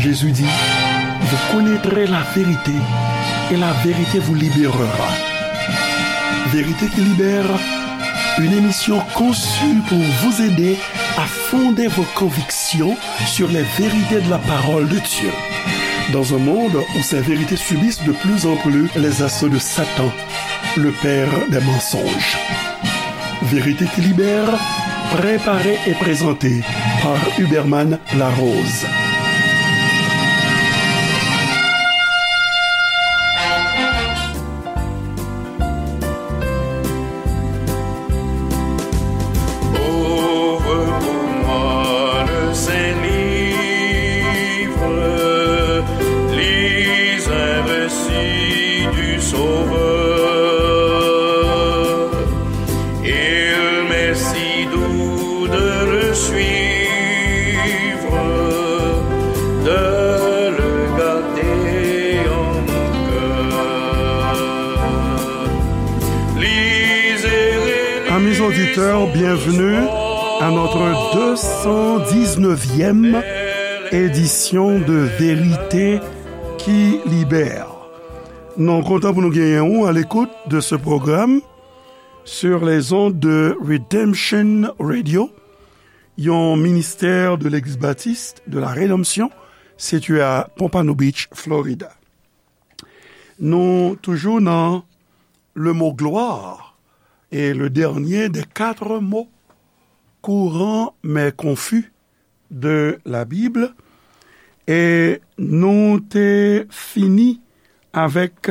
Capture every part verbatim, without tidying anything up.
Jésus dit, vous connaîtrez la vérité et la vérité vous libérera. Vérité qui libère, une émission conçue pour vous aider à fonder vos convictions sur les vérités de la parole de Dieu. Dans un monde où ces vérités subissent de plus en plus les assauts de Satan, le père des mensonges. Vérité qui libère, préparée et présentée par Huberman Larose. Ouvre pour moi le Saint-Livre, lis un récit du Sauveur. Il m'est si doux de le suivre, de le garder en mon cœur. Lisez et Amis auditeurs, bienvenue à notre deux cent dix-neuvième édition de Vérité qui libère. Nou kontan pou nou genyen ou à l'écoute de ce programme sur les ondes de Redemption Radio, yon ministè de Legliz Batis de la Redanmsyon, sitiye a Pompano Beach, Florida. Nou toujou nan le mot gloire, et le dernier des quatre mots courants mais confus de la Bible, e nou te fini avèk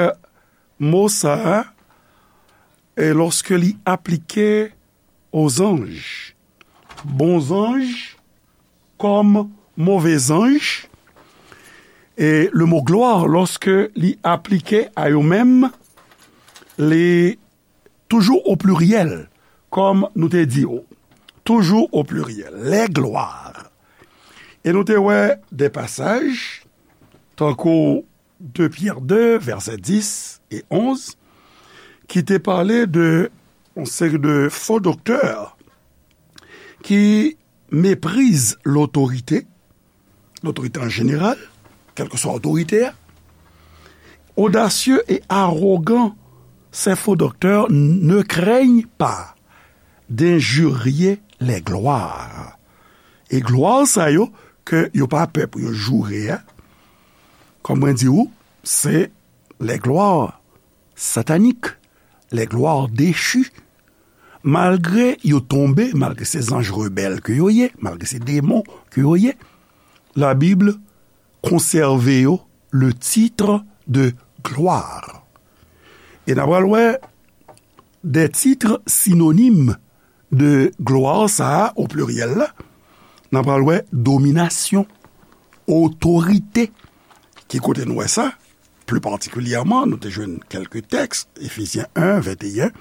mo sa a, e lòske li aplike aux anges, bon zanj kòm move zanj, e le mot gloire, lòske li aplike a yo menm, li toujou o pliryèl, kòm nou te di yo, toujou o pliryèl, les gloires. E nou te wè de pasaj, tankou de Pyè de, vèsè dis e onz, ki te pale de yon seri de fo doktè ki mepriz lotorite, lotorite an jeneral, kèlkeswa otorite a. Audacieux et arrogants, ces faux docteurs ne craignent pas d'injurier les gloires. E glwa sa yo, ke yo pa pè pou yo joure a, kòm mwen di ou, se les gloires sataniques, les gloires déchues. Malgre yo tonbe, malgre se zanj rebèl ke yo ye, malgre se demon ke yo ye, Labib konsève yo le titre de gloire. E n a pral wè de titre sinonime de gloire sa a, o pliryèl la, n a pral wè dominasyon, otorite. Ki kote nou wè sa? Pli patikilyèman, nou te jwenn kèlke tèks, Éphésiens un, vingt et un,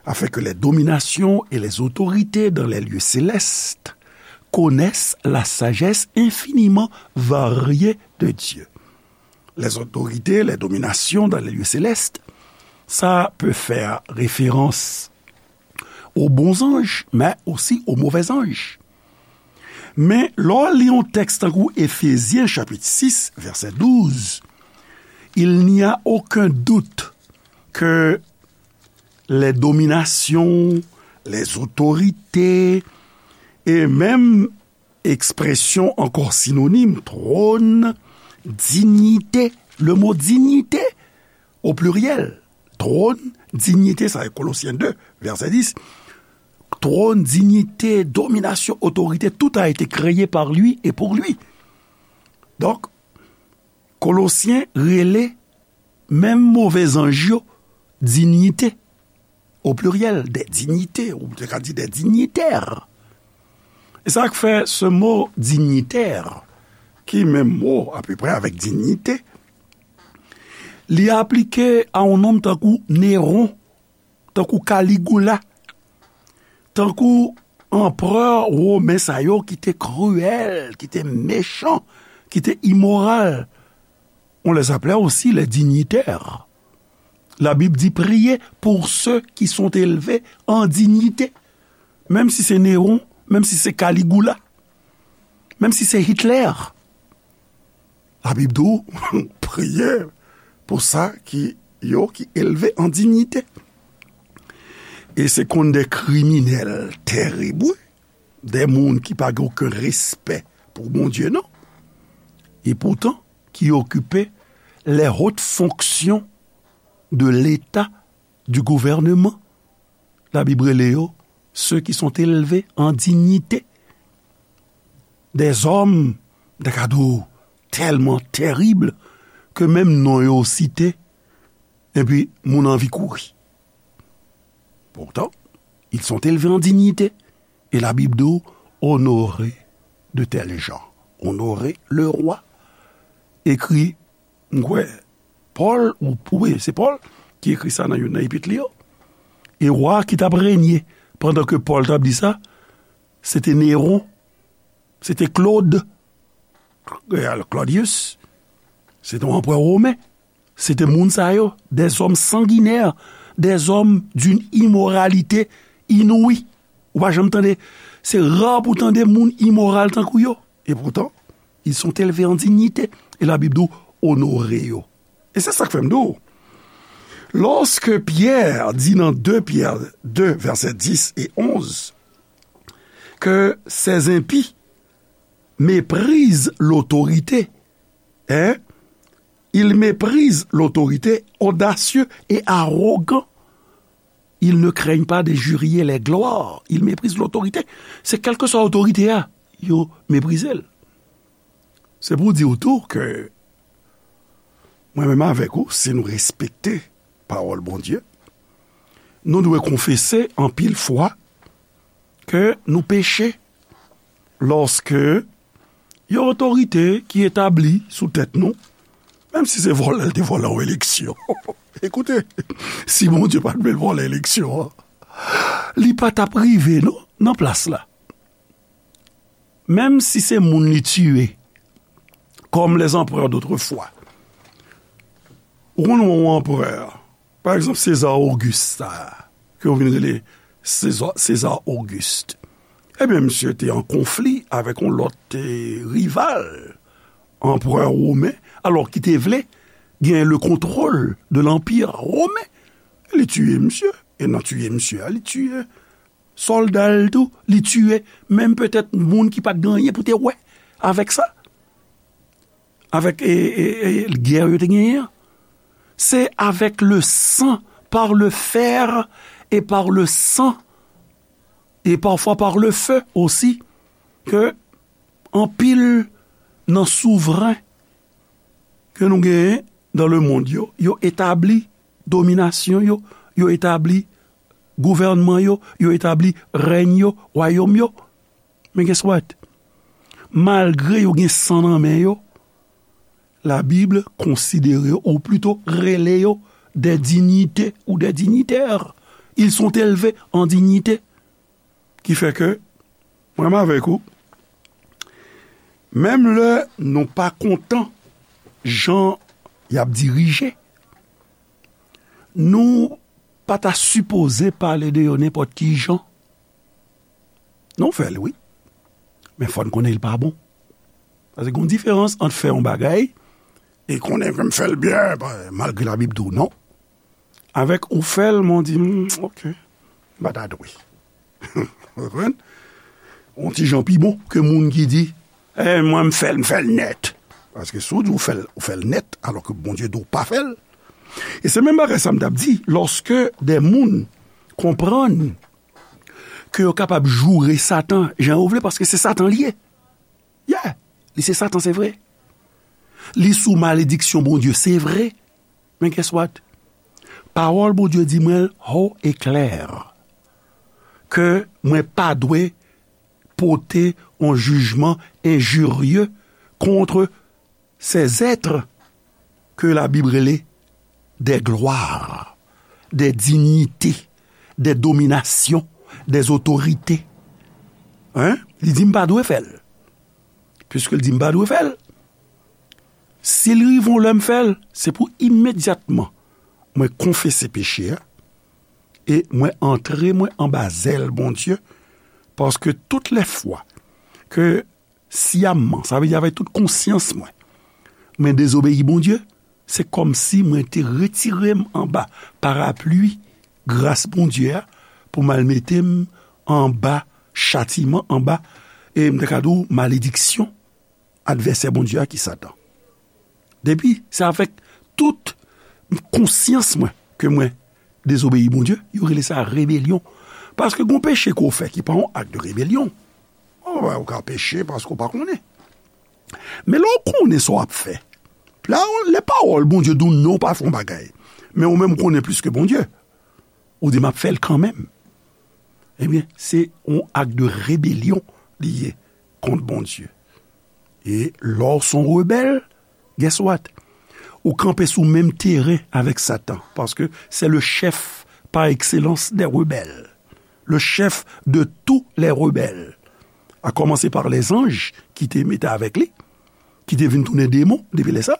afin que les dominations et les autorités dans les lieux célestes connaissent la sagesse infiniment variée de Dieu. Les autorités, les dominations dans les lieux célestes, ça peut faire référence aux bons anges, mais aussi aux mauvais anges. Men, lè w li yon tèks tankou Efezyen chapit sis, vèsè douz, il n'y a aucun doute que les dominations, les autorités, et même ekspresyon ankò sinonim, twòn, dinyite. Le mo dinyite, o pliryèl, twòn, dinyite, sa e Kolosyen de, vèsè dis. Twòn, dinyite, dominasyon, otorite, tout a été créé par lui et pour lui. Donk, Kolosyen rele menm move zanj yo dinyite, o pliryèl, des dignités, ou te ka di des dignitaires. E sa k fè se mo dinyitè, ki menm mo apeprè avèk dinyite, li aplike a yon nonm tankou Néron, tankou Kaligoula, tankou anperè women sa yo ki te kriyèl, ki te mechan, ki te imoral. On les appelait aussi les dignitaires. La Bible dit, priez pour ceux qui sont élevés en dignité. Menm si se Néron, menm si se Kaligoula, menm si se Hitler. Labib di w, priye pou sa ki, yo ki elve an diyite. E se konn de kriminèl terib, wi, de moun ki pa gen okenn respè pou Bondye, non. E poutan, ki okipe les hautes fonctions de l'État, du gouvernement. Labib rele yo ceux qui sont élevés en dignité. Des hommes, m ta ka di w, tèlman terib ke menm non yo site, epi moun anvi kouri. Pourtant, ils sont élevés en dignité. E Labib di w, honorez de tels gens. Honorez le roi. Ekri, m kwè, Pòl, ou, wi, se Pòl ki ekri sa nan youn nan epit li yo. E wa ki t ap renye pandan ke Pòl t ap di sa, se te Neron, se te Claude, Claudius, se te yon anperè women. Se te moun sa yo, des hommes sanguinaires, des hommes d'une immoralité inouïe. Ou pa janm tande, se ra pou tande moun imoral tankou yo. E poutan, ils sont élevés en dignité. E Labib di w, onore yo. E se sa k fè m di w, lòske Pyè di nan de Pyè de, vèsè dis e onz, que ces impies méprisent l'autorité, hein? Ils méprisent l'autorité, audacieux et arrogants. Ils ne craignent pas d'injurier les gloires. Ils méprisent l'autorité. Se kèlkeswa otorite a, yo meprize l. Se pou di w tou ke mwen menm avèk ou, si nou respekte pawòl Bondye, nou dwe konfese anpil fwa ke nou peche lòske yon otorite ki etabli sou tèt nou, menm si se vòlè l te vòlè yon eleksyon. Ekoute, si Bondye pa t vle l vòlè eleksyon an, li pa t ap rive non nan plas la. Menm si se moun li tiye, comme les empereurs d'autrefois. Ou konn yon anperè, pa egzanp, César Auguste, sa, ke yo vin rele César, César Auguste. Ebyen, misye te an konfli avèk yon lòt, eh, rival, anperè women, alò ki te vle gen le contrôle de l'Empire romain. Li tiye misye, e nan tiye misye a, li tiye sòlda l tou, li tiye menm petèt moun ki pa t gen anyen pou te wè avèk sa. Avèk, e, e, e, gè yo te genyen an. Se avec le sang, par le fer et par le sang, et parfois par le feu aussi, ke anpil nan souvren ke nou genyen dans le monde yo, yo etabli dominasyon yo, yo etabli gouvènman yo, yo etabli rèny yo, wayòm yo. Men guess what? Malgre yo gen san nan men yo, Labib konsidere yo, ou plito rele yo des dignités ou des dignitaires. Ils sont élevés en dignité. Ki fè ke, mwen menm avèk ou, menm lè nou pa kontan jan y ap dirije, nou pa ta sipoze pale de yo nenpòt ki jan. Nou fè l, wi. Men fò n konnen l pa bon. Paske gen yon diferans ant fè yon bagay e konnen ke m fè l byen, pa, malgre Labib di w non. Avèk ou fè l, men w di, "Hmm, ok, m pa ta dwe." Ou konprann? Yon ti jan pi bon ke moun ki di, "Eh, mwen, m fè l, m fè l nèt." Paske si w di w fè l, ou fè l nèt, alò ke Bondye di w pa fè l. E se menm bagay sa m t ap di, lòske de moun konprann ke yo kapab joure Satan jan yo vle, paske se Satan li ye. Yeah, li se Satan, se vre. Li sou malediksyon Bondye, se vre. Men guess what? Pawòl Bondye di mwen haut et clair ke mwen pa dwe pote yon jijman enjirye contre ces êtres que la Bible rele des gloires, des dignités, des dominations, des autorités. Hein? Li di m pa dwe fè l. Piske l di m pa dwe fè l, si l rive yon lè m fè l, se pou imedyatman mwen konfese peche a e mwen antre mwen anba zèl Bondye, paske tout lè fwa ke syamman, sa vle di avèk tout konsyans mwen, mwen dezobeyi Bondye, se kòmsi mwen te retire m anba parapli gras Bondye a pou m al mete m anba chatiman, anba, e m ta ka di w, malediksyon advèsè Bondye a ki Satan. Depi, se avèk tout konsyans mwen ke mwen dezobeyi Bondye, yo rele sa rebelyon. Paske gon peche ke w fè ki pa yon ak de rebelyon. Ou ka peche paske w pa konnen. Men lè w konnen sa w ap fè, la, lè pawòl Bondye di w non, w pa fè yon bagay, men ou menm ou konnen plis ke Bondye, ou di, "M ap fè l kanmenm." Ebyen, se yon ak de rebelyon li ye kont Bondye. E lè w se yon rebèl, guess what? Ou kanpe sou menm teren avèk Satan, paske se le chèf pa ekselans dè rebèl, le chèf de tou lè rebèl, a kòmanse pa lèzanj ki te mete avèk li, ki te vin tounen demon depi lè sa,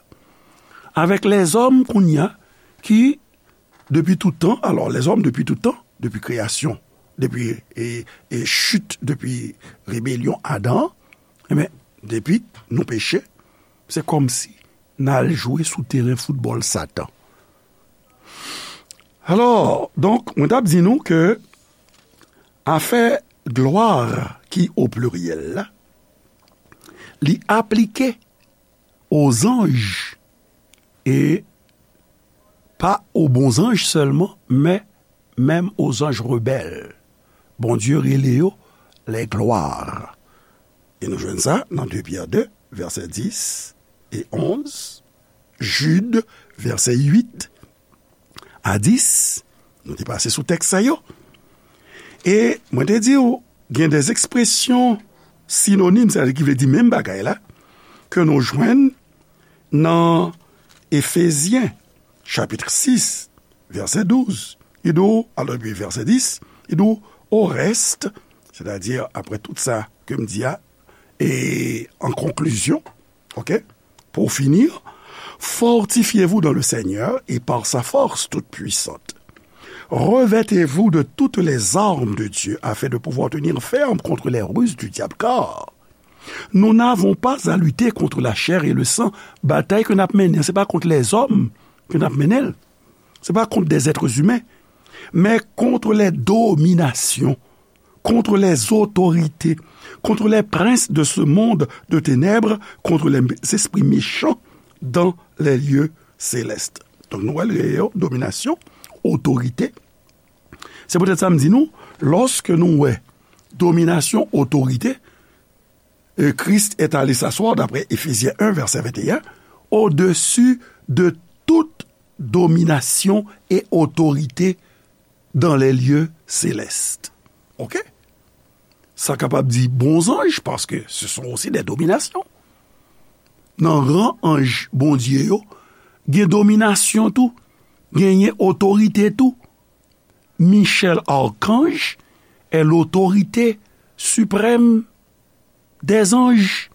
avèk lèzòm kounye a ki depi tout tan, alò, lèzòm depi tout tan, depi kreyasyon, depi, e, e chit, depi rebelyon Adan an, ebyen, depi nou peche, se kòmsi n al jwe sou teren foutbòl Satan. Alò, donk, mwen t ap di nou ke afè glwa ki o pliryèl la, li aplike o zanj, e pa o bon zanj sèlman, men menm o zanj rebèl. Bondye rele yo les gloires. E nou jwenn sa nan de Pyè de, vèsè dis e onz, Jid, vèsè uit a dis, nou te pase sou tèks sa yo. E mwen te di w, gen de ekspresyon sinonim, sètadi ki vle di menm bagay la, ke nou jwenn nan Efezyen, chapit sis, vèsè douz. Li di w, alò, epi vèsè dis, li di w, orèst, sètadi, apre tout sa ke m di a, e an konklizyon, oke, pour finir, fortifiez-vous dans le Seigneur et par sa force toute puissante. Revêtez-vous de toutes les armes de Dieu afin de pouvoir tenir ferme contre les ruses du diable, car nous n'avons pas à lutter contre la chair et le sang. Batay ke n ap mennen, se pa kont lèzòm ke n ap mennen l. Se pa kont des êtres humains, men contre les dominations, contre les autorités, contre les princes de ce monde de ténèbres, contre les esprits méchants dans les lieux célestes. Donk, nou wè l gen yo, dominasyon, otorite. Se poutèt sa m di nou, lòske nou wè dominasyon, otorite, euh, Christ est allé s'asseoir, d'après Éphésiens un, verset vingt et un, au-dessus de toute domination et autorité dans les lieux célestes. Oke? Sa kapab di bon zanj, paske ce sont aussi des dominations. Nan ran anj Bondye yo, gen dominasyon tou, genyen otorite tou. Michel Archange est l'autorité suprême des anges.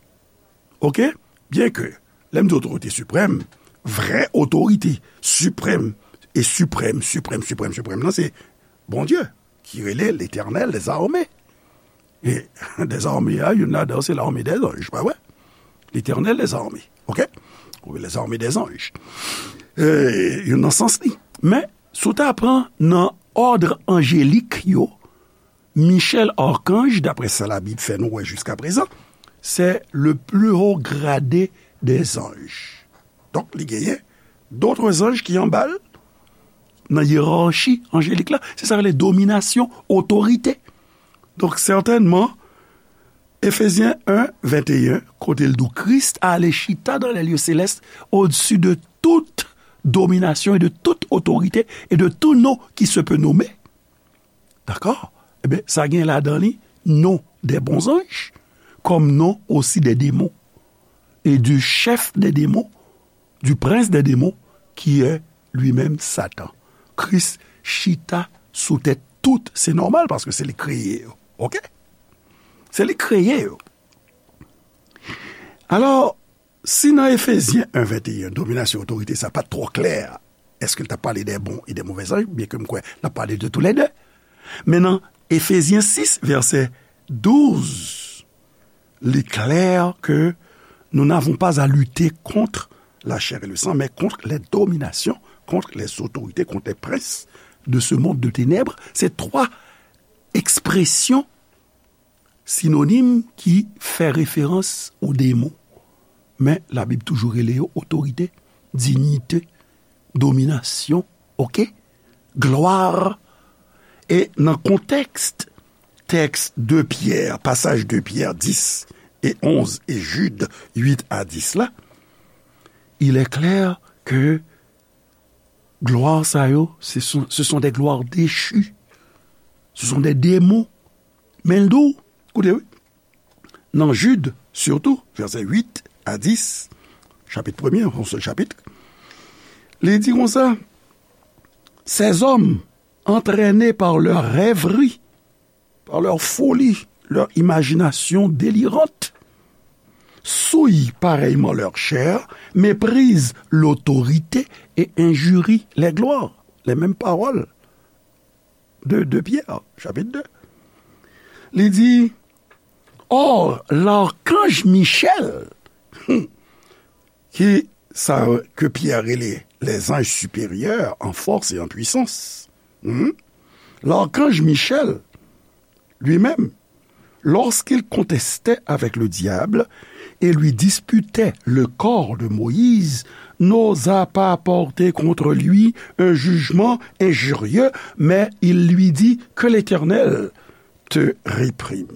Oke? Byenke, lè m di otorite siprèm, vrè otorite siprèm e siprèm, siprèm, siprèm, siprèm nan, se Bondye, ki rele Letènèl dèzame. E dèzame a, youn ladan se lame dèzanj, pa vre? Letènèl dèzame, oke? Ou lèzame dèzanj. E, youn nan sans li. Men, si w ta pran nan òd anjelik yo, Michel Archange, daprè sa Labib fè nou wè jiskaprezan, c'est le plus haut gradé des anges. Donk, li genyen dòt zanj ki anba l nan yerachi anjelik la. Se sa k rele dominasyon, otorite. Donk, sètènman, Éphésiens un, vingt et un, kote l di w, Christ a allé chita dans les lieux célestes, au-dessus de toute domination et de toute autorité et de tout nom qui se peut nommer. Dakò? Ebyen, sa gen ladan li non des bons anges, comme nom aussi des démons, et du chef des démons, du prince des démons, qui est lui-même Satan. Kris chita sou tèt tout, se nòmal, paske se li k kreye yo. Oke? Se li k kreye yo. Alò, si nan Efezyen en, venteyen, dominasyon otorite sa pa t twò klè, èske l t ap pale de bon e de movè zanj? Byenke m kwè l ap pale de toulède. Men nan Efezyen sis, vèsè douz, li klè ke nous n'avons pas à lutter contre la chair et le sang, mais contre les dominations, contre les autorités, contre les princes de ce monde de ténèbres. Se twa ekspresyon sinonim ki fè referans o demon. Men Labib toujou rele yo otorite, diyite, dominasyon, oke? Glwa. E nan kontèks tèks de Pyè, pasaj de Pyè dis e onz e Jid uit a dis la, il est clair que glwa sa yo, ce sont, ce sont des gloires déchues. Ce sont des démons. Men l di w, koute wi, nan Jid, sitou, vèsè uit a dis, chapit premye, yon sèl chapit, li di konsa, ces hommes, entraînés par leurs rêveries, par leur folie, leur imagination délirante, souillent pareillement leur chair, méprisent l'autorité et injurient les gloires. Les mêmes paroles de, de Pierre, chapitre deux. Li di, or, l'archange Michel, ki sa ke Pierre rele les anges supérieurs en force et en puissance, hmm, l'archange Michel, lui-même, lorsqu'il contestait avec le diable et lui disputait le corps de Moïse, n'osa pas porter contre lui un jugement injurieux, mais il lui dit, que l'Éternel te réprime.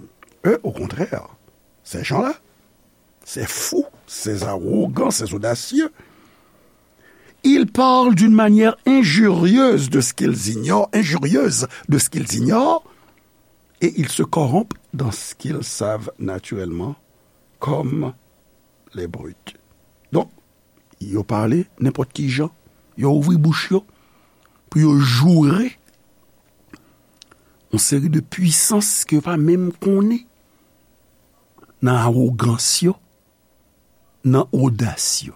Eux, au contraire, ces gens-là, ces fous, ces arrogants, ces audacieux, ils parlent d'une manière injurieuse de ce qu'ils ignorent, injurieuse de ce qu'ils ignorent, et ils se corrompent dans ce qu'ils savent naturellement comme les brutes. Donk, yo pale nenpòt ki jan, yo ouvri bouch yo pou yo joure yon seri de pwisans ke yo pa menm konnen nan awogans yo, nan odas yo.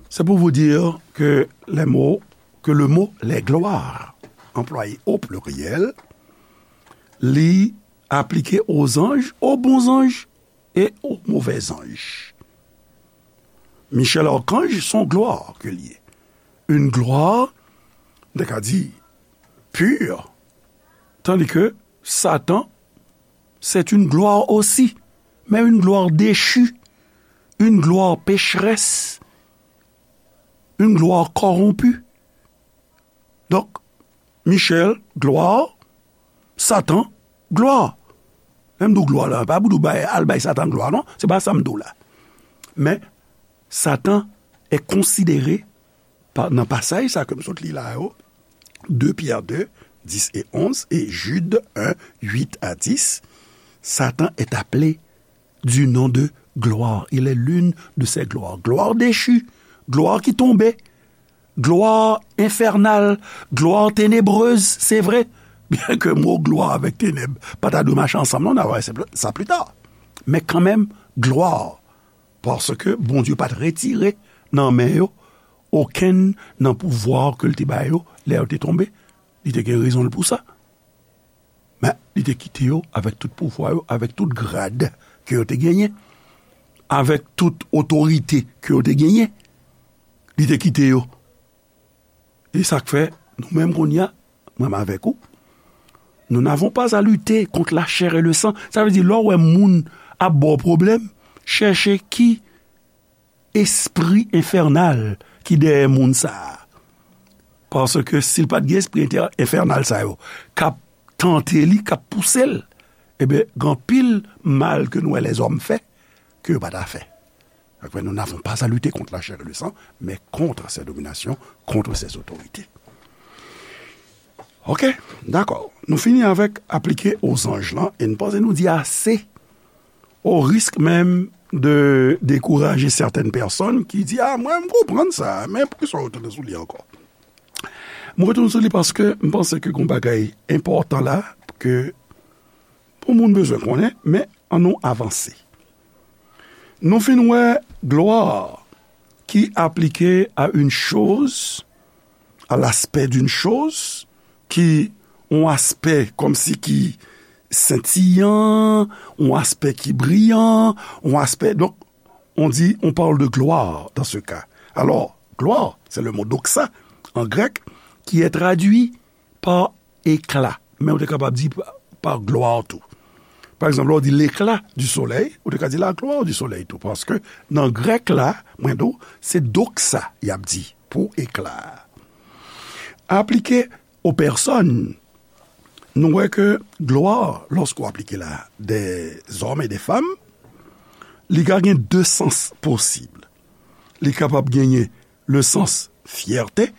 C'est pour vous dire que les mots, que le mot les gloires, employé au pluriel, li aplike aux anges, aux bons anges et aux mauvais anges. Michel Archange, son glwa ke li ye. Une gloire, nou ka di, pure, tandis que Satan, c'est une gloire aussi, mais une gloire déchue, une gloire pécheresse, une gloire corrompue. Donk, Michel, glwa, Satan, glwa. Lè m di w glwa la, pa pou di w bay, al bay Satan glwa, non. Se pa sa m di w la. Men, Satan est considéré pa, nan pasaj sa ke m sot li la yo, de Pierre deux, dix et onze, et Jude un, huit à dix, Satan est appelé du nom de gloire. Il est l'une de ces gloires. Gloire déchue, glwa ki tonbe, glwa enfènal, glwa tenebreuse, se vre. Byen ke mo glwa avèk tenèb pa ta dwe mache ansanm, non, n a wè sa pli ta. Men kanmenm, glwa, paske Bondye pa t retire nan men yo okenn nan pouvwa ke l te ba yo lè yo te tonbe. Li te gen rezon l pou sa. Men, li te kite yo avèk tout pouvwa yo, avèk tout grad ke yo te genyen, avèk tout otorite ke yo te genyen. Li te kite yo. E sa k fè, nou menm kounye a, mwen menm avèk ou, nous n'avons pas à lutter contre la chair et le sang. Sa vle di, lè w wè moun ap ba w pwoblèm, chèche ki espri enfènal ki dèyè moun sa a. Paske si l pa t gen espri entè-, enfènal sa yo, k ap tante li, k ap pouse l, ebyen, gen anpil mal ke nou wè lèzòm fè, ke yo pa ta fè. Sa k fè, nous n'avons pas à lutter contre la chair et le sang, mais contre ces dominations, contre ces autorités. Ok, dakò. Nou fini avèk aplike aux anges lan, e n panse nou di ase, au risque même de décourager certaines personnes ki di, ah, mwen, m konprann sa, men poukisa w retounen sou li ankò? M retounen sou li paske m panse ke gen yon bagay enpòtan la, ke pou moun bezwen konnen, men ann nou avanse. Nou fin wè glwa ki aplike à une chose, à l'aspect d'une chose, ki yon aspè kòmsi ki sentiyan, yon aspè ki briyan, yon aspè, donk, on dit, on parle de gloire dans ce cas. Alors, gloire, c'est le mot doxa en grec qui est traduit par éclat. Men ou te kapab di pa, pa glwa tou. Pa egzanp, lè w di l'éclat du soleil, ou te ka di la gloire du soleil tou. Paske nan grèk la, mwen di w, se doxa y ap di pou éclat a. Aplike aux personnes, nou wè ke gloire, lorsqu'on applique la des hommes et des femmes, li ka gen de sans posib. Li kapab genyen le sans fierté,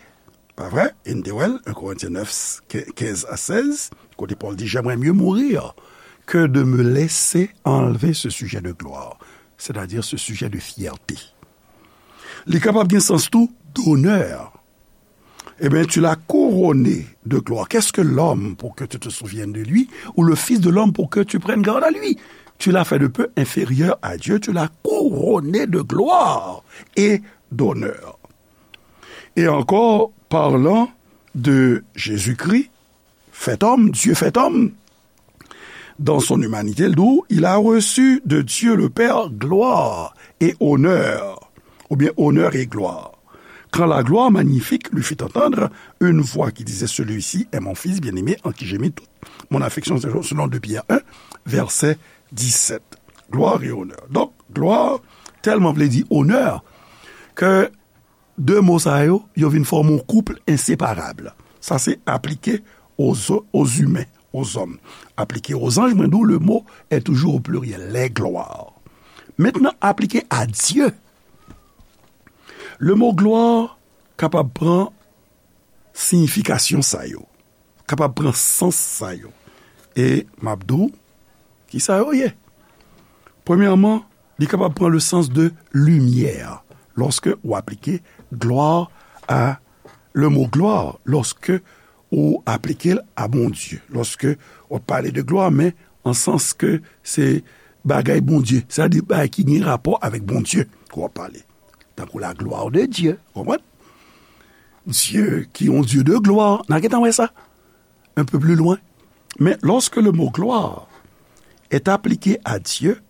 pa vre? E n te wè l, un Corinthiens neuf, quinze à seize, kote Pòl di, j'aimerais mieux mourir que de me laisser enlever ce sujet de gloire, c'est-à-dire ce sujet de fierté. Li kapab gen sans tou d'honneur. Eh bien, tu l'as couronné de gloire. Qu'est-ce que l'homme pour que tu te souviennes de lui, ou le fils de l'homme pour que tu prennes garde à lui? Tu l'as fait de peu inférieur à Dieu, tu l'as couronné de gloire et d'honneur. Et encore, parlant de Jésus-Christ, fait homme, Dieu fait homme, dans son humanité, il a reçu de Dieu le Père gloire et honneur, ou bien honneur et gloire. Quand la gloire magnifique lui fit entendre une voix qui disait, celui-ci est mon fils bien-aimé en qui j'ai mis toute mon affection, selon deux Pierre un, verset dix-sept. Gloire et honneur. Donk, glwa, tèlman vle di onè, ke de mo sa yo, yo vin fòme yon koup enseparab. Sa se aplike aux, aux humains, aux hommes. Aplike aux anges, mwen di w, le mot est toujours au pluriel, les gloires. Maintenant, aplike à Dieu. Le mot gloire kapab pran siyifikasyon sa yo, kapab pran sans sa yo. E m ap di w ki sa yo ye. Premyèman, li kapab pran le sens de lumière. Lorsque ou aplike gloire à, le mot gloire, lorsque ou aplike l a Bondye. Lorsque ou pale de glwa, men an sans ke se bagay Bondye, sètadi bagay ki gen rapò avèk Bondye ke w ap pale. Tankou la gloire de Dieu, ou konprann? Dieu qui est un Dieu de gloire. N a gentan wè sa un peu plus loin. Mais lorsque le mot gloire est appliqué à Dieu,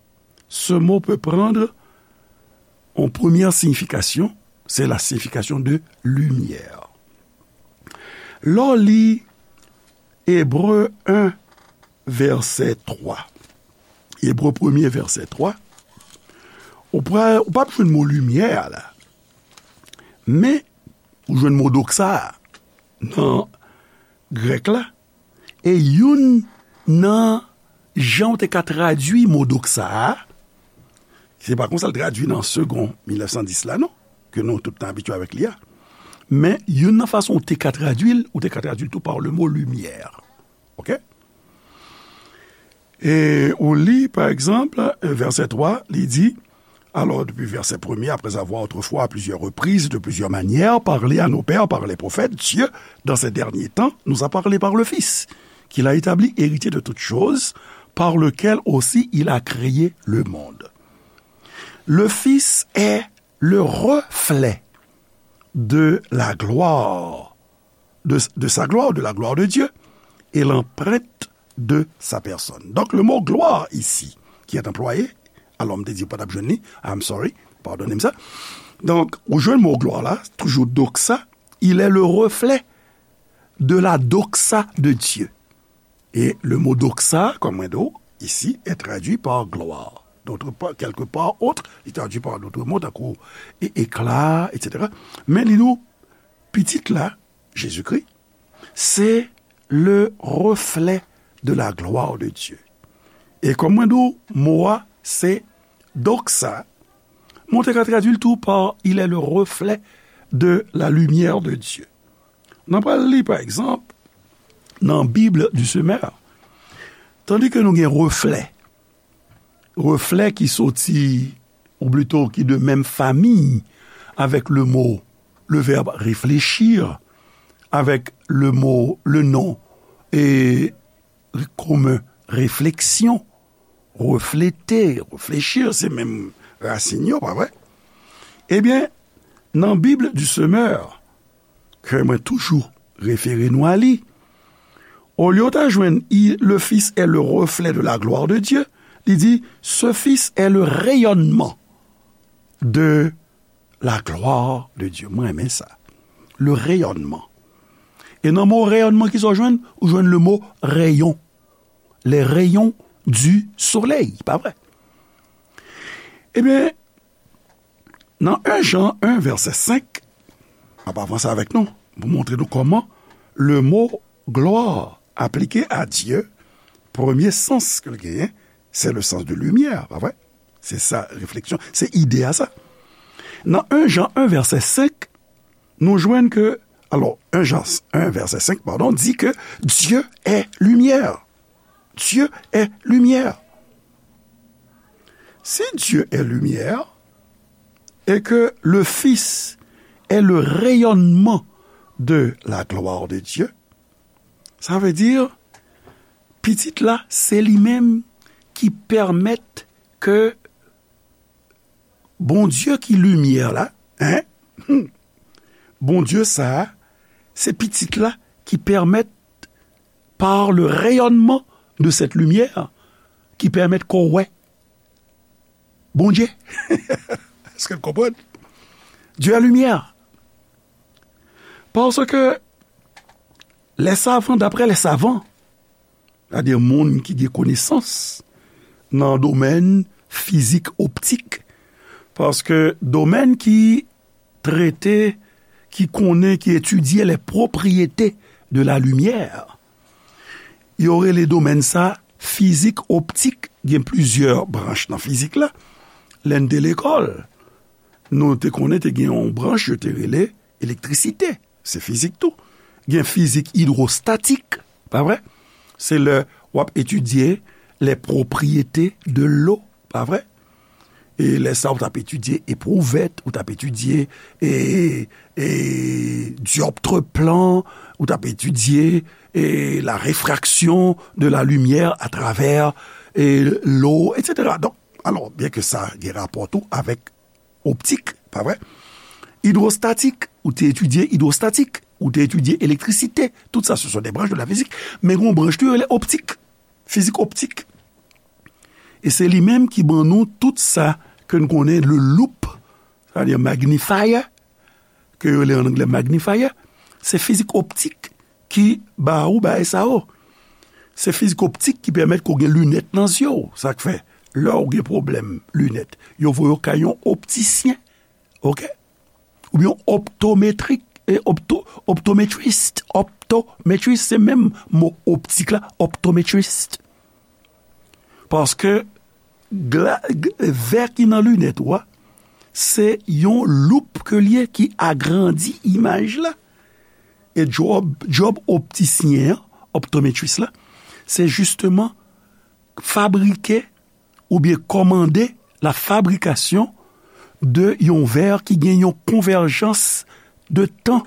ce mot peut prendre en première signification, c'est la signification de lumière. Lè w li Ebre un, vèsè twa. Ebre premye, vèsè twa. Ou pa, ou p ap jwenn mo limyè a la. Men, ou jwenn mo doxa a nan grèk la. E youn nan jan w te ka tradui mo doxa a, se pa konsa l tradui nan Segond mil nèf san dis la, non, ke nou tout nou abitye avèk li a. Men, youn nan fason w te ka tradui l, ou te ka tradui l tou pa le mo limyè. Oke? E ou li, pa egzanp, vèsè twa, li di, alors, depuis verset premier, après avoir autrefois, à plusieurs reprises, de plusieurs manières, parlé à nos pères par les prophètes, Dieu, dans ces derniers temps, nous a parlé par le Fils, qu'il a établi héritier de toutes choses, par lequel aussi il a créé le monde. Le Fils est le reflet de la gloire, de, de sa gloire, de la gloire de Dieu, et l'empreinte de sa personne. Donc, le mot gloire ici, qui est employé, alò m te di w pa t ap jwenn li, I'm sorry, padone m sa. Donk, ou jwenn mo glwa la, toujou doxa, il est le reflet de la doxa de Dieu. Et le mot doxa, comme on dit ici, est traduit par gloire. D'autre part, quelque part autre, il est traduit par d'autres mots, tankou é-, éclat, et cetera. Men li di w, pitit la, Jezikri, c'est le reflet de la gloire de Dieu. E kòm mwen di w, mo a se doxa, men w te ka tradui l tou pa il est le reflet de la lumière de Dieu. N a pral li, pa egzanp, nan Bible du Semeur, tandi ke nou gen reflè, reflè ki soti, ou plito ki de menm fami avèk le mo, le verbe réfléchir, avèk le mo, le non, e komen réflexion, refléter, réfléchir, se menm rasin yo, pa vre? Ebyen, nan Bible du Semeur, ke mwen toujou refere nou a li, olye w ta jwenn i, le Fils est le reflet de la gloire de Dieu, li di, ce Fils est le rayonnement de la gloire de Dieu. Mwen renmen sa. Le rayonnement. E nan mo rayonnement, kisa w jwenn? Ou jwenn le mo rayon. Les rayons du soleil, pa vre? Ebyen, nan en Jan en, vèsè senk, m ap avanse avèk nou pou montre nou kòman le mo gloire appliqué à Dieu, premye sans ke l genyen, se le sens de lumière, pa vre? Se sa refleksyon, se ide a sa. Nan en Jan en, vèsè senk, nou jwenn ke, alò, en Jan en, vèsè senk, padon, di ke Dieu est lumière. Dieu est lumière. Si Dieu est lumière et que le Fils est le rayonnement de la gloire de Dieu, sa vle di, Pitit la, se li menm ki pèmèt ke Bondye ki limyè la, en, hmm, Bondye sa a, se Pitit la ki pèmèt, par le rayonnement de cette lumière, ki pèmèt ke w wè Bondye. Èske n konprann? Dieu est lumière. Parce que les savants, d'après les savants, sètadi moun ki gen konesans nan domèn fizik optik, paske domèn ki trete, ki konnen, ki etidye les propriétés de la lumière, yo rele domèn sa fizik optik. Gen plizyè branch nan fizik la. Lè n te lekòl, nou te konnen te gen yon branch yo te rele elektrisite. Se fizik tou. Gen fizik idwostatik, pa vre? Se lè w ap etidye les propriétés de l'eau, pa vre? E lè sa, ou t ap etidye eprouvèt, ou t ap etidye e, e, dioptre plan, ou t ap etidye e, la réfraction de la lumière à travers e, l'eau, et cetera. Donk, alò, byen ke sa gen rapò tou avèk optik, pa vre? Idwostatik, ou te etidye idwostatik, ou te etidye elektrisite, tout sa, ce sont des branches de la physique, men gen yon branch tou yo rele optik, fizik optik. E se li menm ki ban nou tout sa ke n konnen, le loup, sètadi magnifier, ke yo rele an anglè magnifier, se fizik optik ki ba ou bagay sa yo. Se fizik optik ki pèmèt ke w gen linèt nan zye w. Sa k fè, lè w gen pwoblèm linèt, yo voye w kay yon optisyen, oke? Oubyen yon optometrik, e, opto-, optometrist, optometrist, se menm mo optik la, optometrist. Paske gla-, g-, vè ki nan linèt ou a, se yon loup ke l ye ki agrandi imaj la. E djòb, djòb optisyen an, optometris la, se jisteman fabrike oubyen kòmande la fabrication de yon vè ki gen yon konvèjans de tan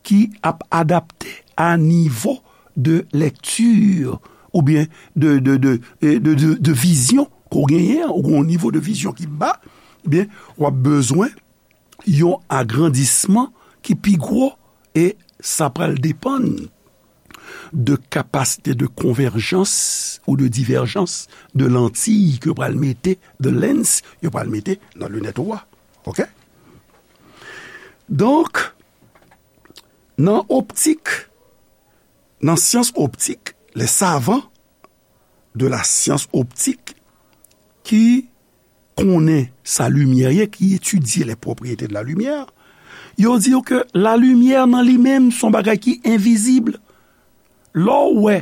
ki ap adapte a nivo de lèkti oubyen de, de, de, e, de, de, de vizyon ke w genyen an, ou gen yon nivo de vizyon ki ba, ebyen, w ap bezwen yon agrandisman ki pi gwo, e sa pral depann de kapasite de konvèjans ou de divèjans de lantiy ke yo pral mete, de lens yo pral mete nan linèt ou a. Oke? Donk, nan optik, nan syans optik, les savants de la science optique ki konnen sa limyè ye, ki etidye les propriétés de la lumière, yo di w ke la limyè nan li menm se yon bagay ki envizib. Lè w wè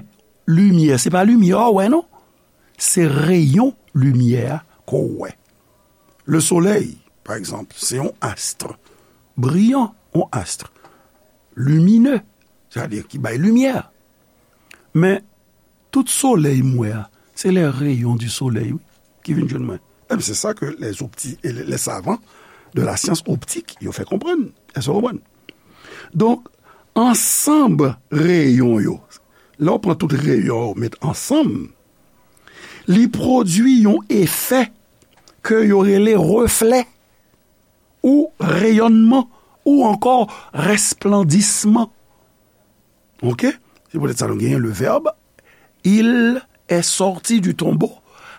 limyè, se pa limyè a w wè non, se reyon limyè a ke w wè. Le soleil, pa egzanp, se yon astre briyan, yon astre limine, sètadi ki bay limyè. Men, tout solèy m wè a, se les rayons du soleil, wi, ki vin jwenn mwen. Ebyen, se sa ke les opti-, les savants de la science optique, yo fè konprann. Èske w konprann? Donk, ansanm reyon yo, lè w pran tout reyon yo, met ansanm, li pwodui yon efè ke yo rele reflè, ou reyònman, ou ankò rèsplandisman. Oke? Se poutèt sa nou genyen le verbe, il est sorti du tombeau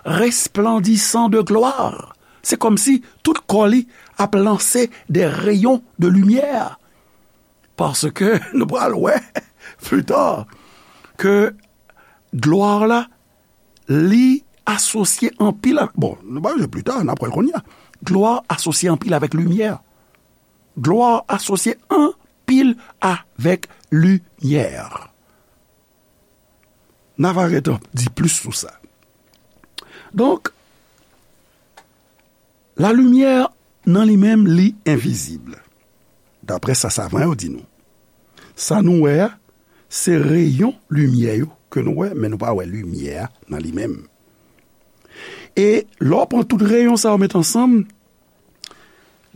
resplendissant de gloire. Se kòmsi tout kò li ap lanse de reyon de limyè. Paske nou pral wè pli ta ke glwa la, li asosye anpil avèk, bon, nou pa bezwen pli ta, n ap wè l kounye a. Glwa asosye anpil avèk limyè. Glwa asosye anpil avèk limyè. N a va ret di plis sou sa. Donk, lalimyè nan li menm, li envizib. Daprè sa savan yo di nou. Sa nou wè a, se reyon limyè yo ke nou wè, men nou pa wè limyè a nan li menm. E lè w pran tout reyon sa yo met ansanm,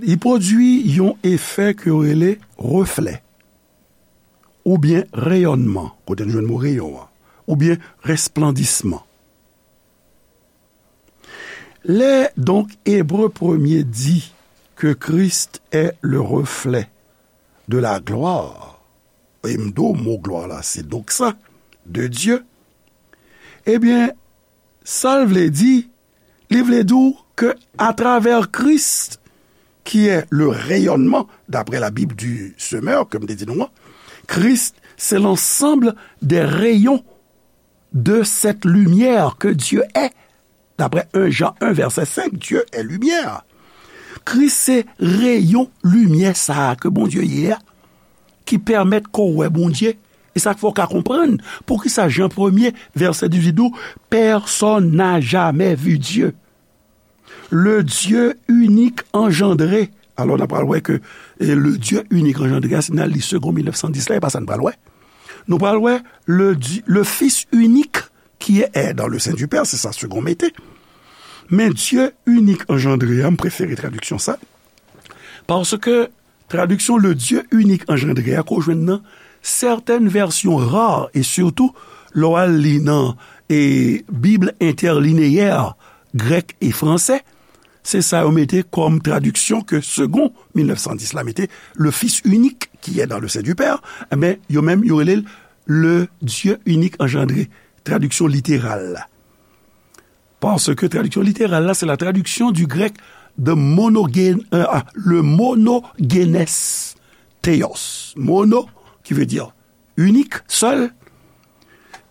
li pwodui yon efè ke yo rele reflè, oubyen reyònman, kote nou jwenn mo reyon an, oubyen resplandisman. Lè donk Ebre premye di ke Christ est le reflet de la gloire, e m di w mo glwa la se doxa de Dieu, ebyen, sa l vle di, li vle di w ke atravè Kris, ki est le rayonnement, d'après la Bible du semeur, ke m te di nou an, Christ, c'est l'ensemble des rayons de cette lumière que Dieu est. D'après un Jean un, verset cinq, Dieu est lumière. Kris se reyon limyè sa a ke Bondye ye a, ki pèmèt ke w wè Bondye. E sa k fè w ka konprann poukisa Jan premye, vèsè dizuit di w, Personne n'a jamais vu Dieu. Le Dieu unique engendré. Alò, n a pral wè ke, e, le Dieu unique engendré a, si n al li Segond mil nèf san dis la, e pa sa n pral wè. Nou pral wè le, Di- le Fils unique qui est dans le sein du Père, se sa Segond mete. Men Dieu unique engendré a, m prefere tradiksyon sa. Paske tradiksyon le Dieu unique engendré a ke w jwenn nan sètèn vèsyon ra, e sitou lè w al li nan, e, Bib entèlineyè grèk e fransè, se sa yo mete kòm tradiksyon ke Segond mil nèf san dis la mete, le Fils unique qui est dans le sein du Père, men yo menm yo rele l le Dieu unique engendré, tradiksyon literal la. Paske tradiksyon literal la, se la tradiksyon du grec de monogen, euh, ah, le monogenes theos. Mono, ki vle di inik, sèl.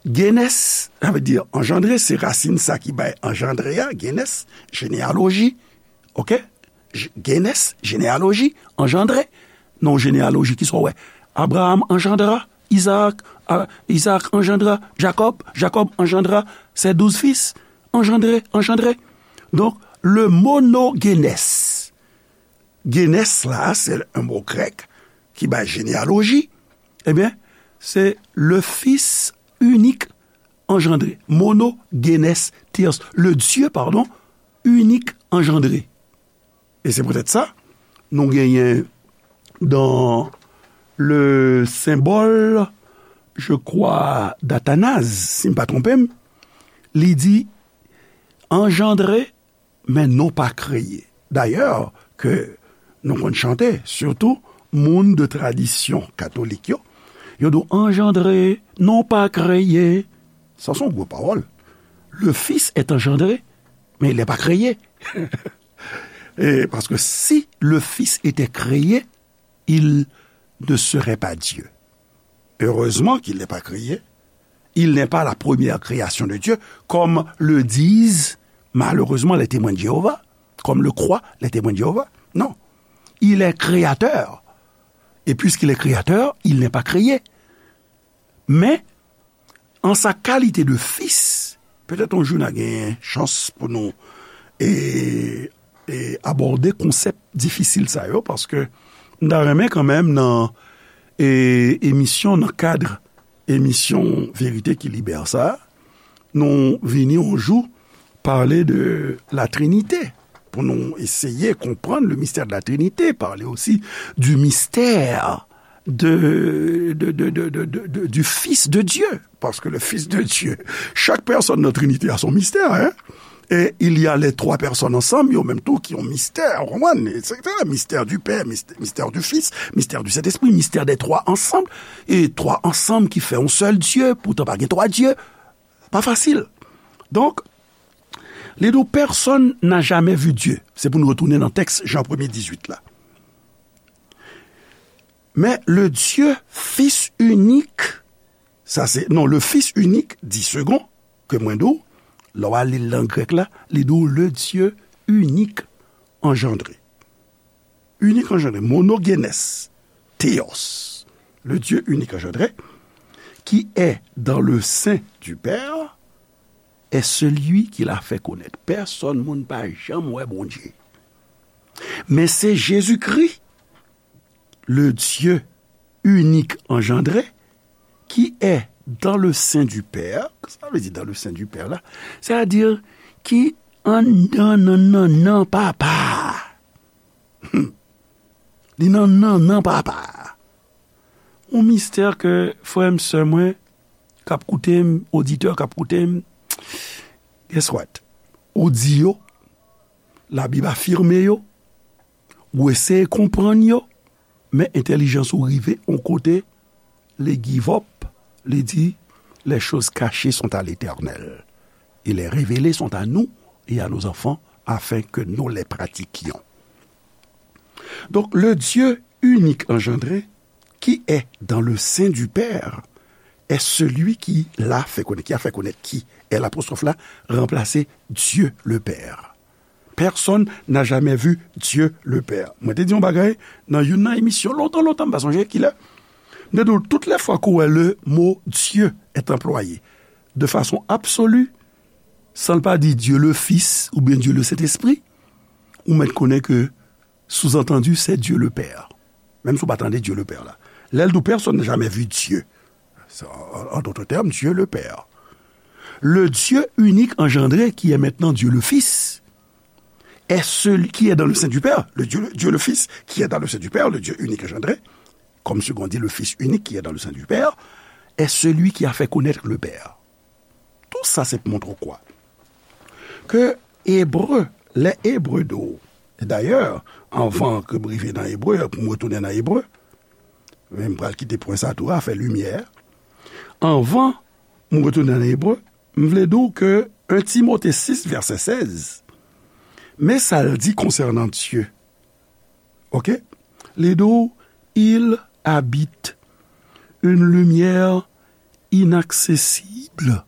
Genes, sa vle di anjandre, se rasin sa ki bay anjandre a, genes, jeneyaloji, oke? J- Genes, jeneyaloji, anjandre. Non, jeneyaloji, kisa w wè? Abraham anjandra Isaac, a, Isaac anjandra Jacob, Jacob anjandra ses douze fils, anjandre, anjandre. Donk, le monogenes. Genes la, se yon mo grèk ki bay jeneyaloji. Ebyen, se le Fils unique engendré. Monogenes theos. Le Dieu, pardon, unique engendré. E se poutèt sa, nou genyen dans le symbole, je crois, d'Athanase, si m pa twonpe m, li di, anjandre, men non pa kreye. Dayè, ke nou konn chante, sitou moun de tradisyon katolik yo, yo di w anjandre, non pa kreye. Sa se yon gwo pawòl. Le Fils est engendré, mais il n'est pas créé. Et parce que si le Fils était créé, il ne serait pas Dieu. Heureusement qu'il n'est pas créé. Il n'est pas la première création de Dieu, comme le disent malheureusement les Témoins de Jéhovah, comme le croient les Témoins de Jéhovah. Non. Il est créateur. Et puisqu'il est créateur, il n'est pas créé. Men, an sa kalite de fis, petèt yon jou n a gen chans pou nou, e, e abòde konsèp difisil sa yo, paske m ta renmen kanmenm nan, e, emisyon, nan kad emisyon Verite ki Libè sa, nou vini yon jou pale de la Trinite, pou nou eseye konprann le mystère de la Trinité, parler aussi du mystère de, de, de, de, de, de, de, du Fils de Dieu, parce que le Fils de Dieu, chaque personne dans la Trinité a son mystère, hein? Et il y a les trois personnes ensemble, yo menm tou ki yon mystè, ou konprann? Et cetera. Mystère du Père, mystè, mystère du Fils, mystère du Saint-Esprit, mystère des trois ensemble, et trois ensemble ki fè yon sèl Dye, poutan pa gen twa Dye. Pa fasil. Donk, Li di w, personne n'a jamais vu Dieu. Se pou nou retounen nan tèks Jan premye dizuit la. Mais le Dieu, Fils unique, sa se, non, le Fils unique, dit second, ke mwen di w, lè w al li l nan grèk la, li di w le Dieu unique engendré. Unique engendré, monogenes, theos, le Dieu unique engendré, qui est dans le sein du Père, est celui qui l'a fait connaître. Pèsonn moun pa janm wè Bondye. Men se Jezikri, le Dieu unique engendré, qui est dans le sein du Père, sa vle di dans le sein du Père la, sètadi ki anndan nan nannan Papa. Li nan nannan Papa. Yon mistè ke frè m, sè mwen, k ap koute m, oditè k ap koute m, guess what? Ou di yo, Labib afime yo, ou eseye konprann yo, men entèlijans ou rive yon kote, li give up, li di, les choses cachées sont à l'Éternel, et les révélées sont à nous et à nos enfants, afin que nous les pratiquions. Donc, le Dieu unique engendré, qui est dans le sein du Père, est celui qui l'a fait connaître. Qui a fait connaître qui? L apostwòf la ranplase Dieu le Père. Personne n'a jamais vu Dieu le Père. Mwen te di yon bagay nan youn nan emisyon lontan, lontan, m pa sonje kilè. M te di w, toutes les fois que le mot Dieu est employé de façon absolue, san l pa di Dieu le Fils oubyen Dieu le Saint-Esprit, ou mèt konnen ke sous-entendu, c'est Dieu le Père. Menm si w pa tande Dieu le Père la. Lè l di w, personne n'a jamais vu Dieu. C'est, en, en d'autres termes, Dieu le Père. Le Dieu unique engendré, qui est maintenant Dieu le Fils, est celui qui est dans le sein du Père. Le Dieu, Dieu le Fils, qui est dans le sein du Père, le Dieu unique engendré, comme second dit le Fils unique qui est dans le sein du Père, est celui qui a fait connaître le Père. Tou sa se pou montre w kwa? Ke Ebre, lè Ebre di w, e dayè, anvan ke m rive nan Ebre, pou m retounen nan Ebre, men m pral kite pwen sa tou, afè limyè. Anvan m retounen nan Ebre, m vle di w ke en Timote sis, vèsè sèz, men sa l di konsènan Dye. Oke? Li di w, il habite une lumière inaccessible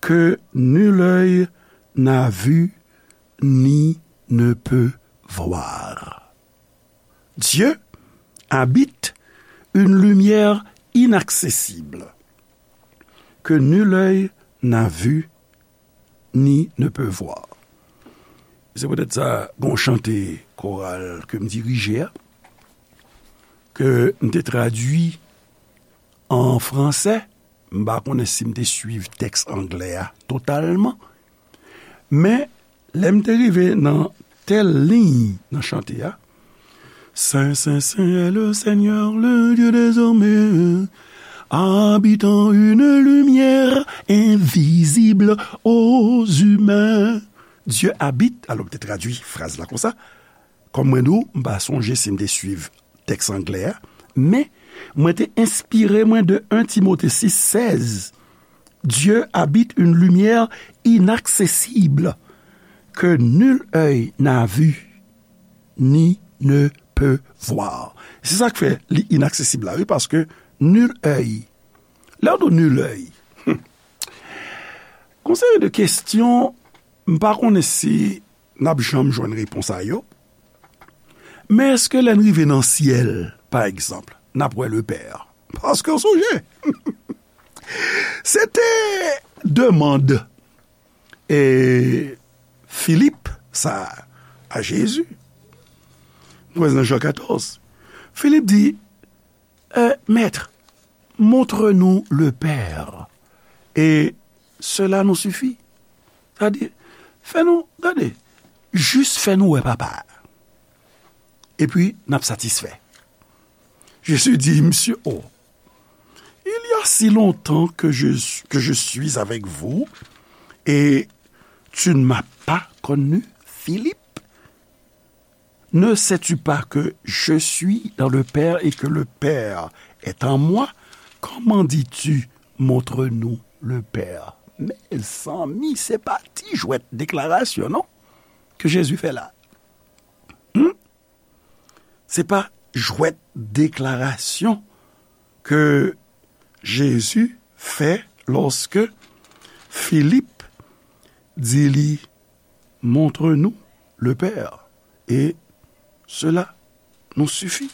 que nul œil n'a vu ni ne peut voir. Dieu habite une lumière inaccessible que nul œil n'a vu ni ne peut voir. Se poutèt sa, gon chante koral ke m dirije a, ke m te tradui an fransè, m pa konnen si m te swiv tèks anglè a totalman, men lè m te rive nan tèl liy nan chante a, Saint, saint, saint est le Seigneur, le Dieu des armées, habitant une lumière invisible aux humains. Dieu habite, alò m te tradui fraz la konsa, kòm mwen di w, m pa sonje si m te swiv tèks anglè a, men mwen te enspire mwen de en Timote sis sèz. Dieu habite une lumière inaccessible que nul œil n'a vue ni ne peut voir. Se sa k fè li inaksesib la, wi, paske nul œil. Lè w di nul œil, gon seri de kesyon, m pa konnen si n ap janm jwenn repons a yo. Men èske lè n rive nan syèl, pa egzanp, n ap wè Lepè? Paske w sonje, se te demann e Filip sa a Jezi. Nou wè nan Jan katòz. Filip di, euh, Maître, montre-nous le Père, et cela nous suffit. Sa di, fè nou, gade, jis fè nou wè Papa a. Epi, n ap satisfè. Jezi di, Monsieur, oh, il y a si longtemps que je, que je suis avec vous, et tu ne m'as pas connu, Philippe? Ne sais-tu pas que je suis dans le Père et que le Père est en moi? Comment dis-tu, montre-nous le Père? Mezanmi, se pa ti jwèt deklarasyon, non, ke Jezi fè la. Hmm? Se pa jwèt deklarasyon ke Jezi fè lòske Filip di li, Montre-nous le Père, et cela nous suffit.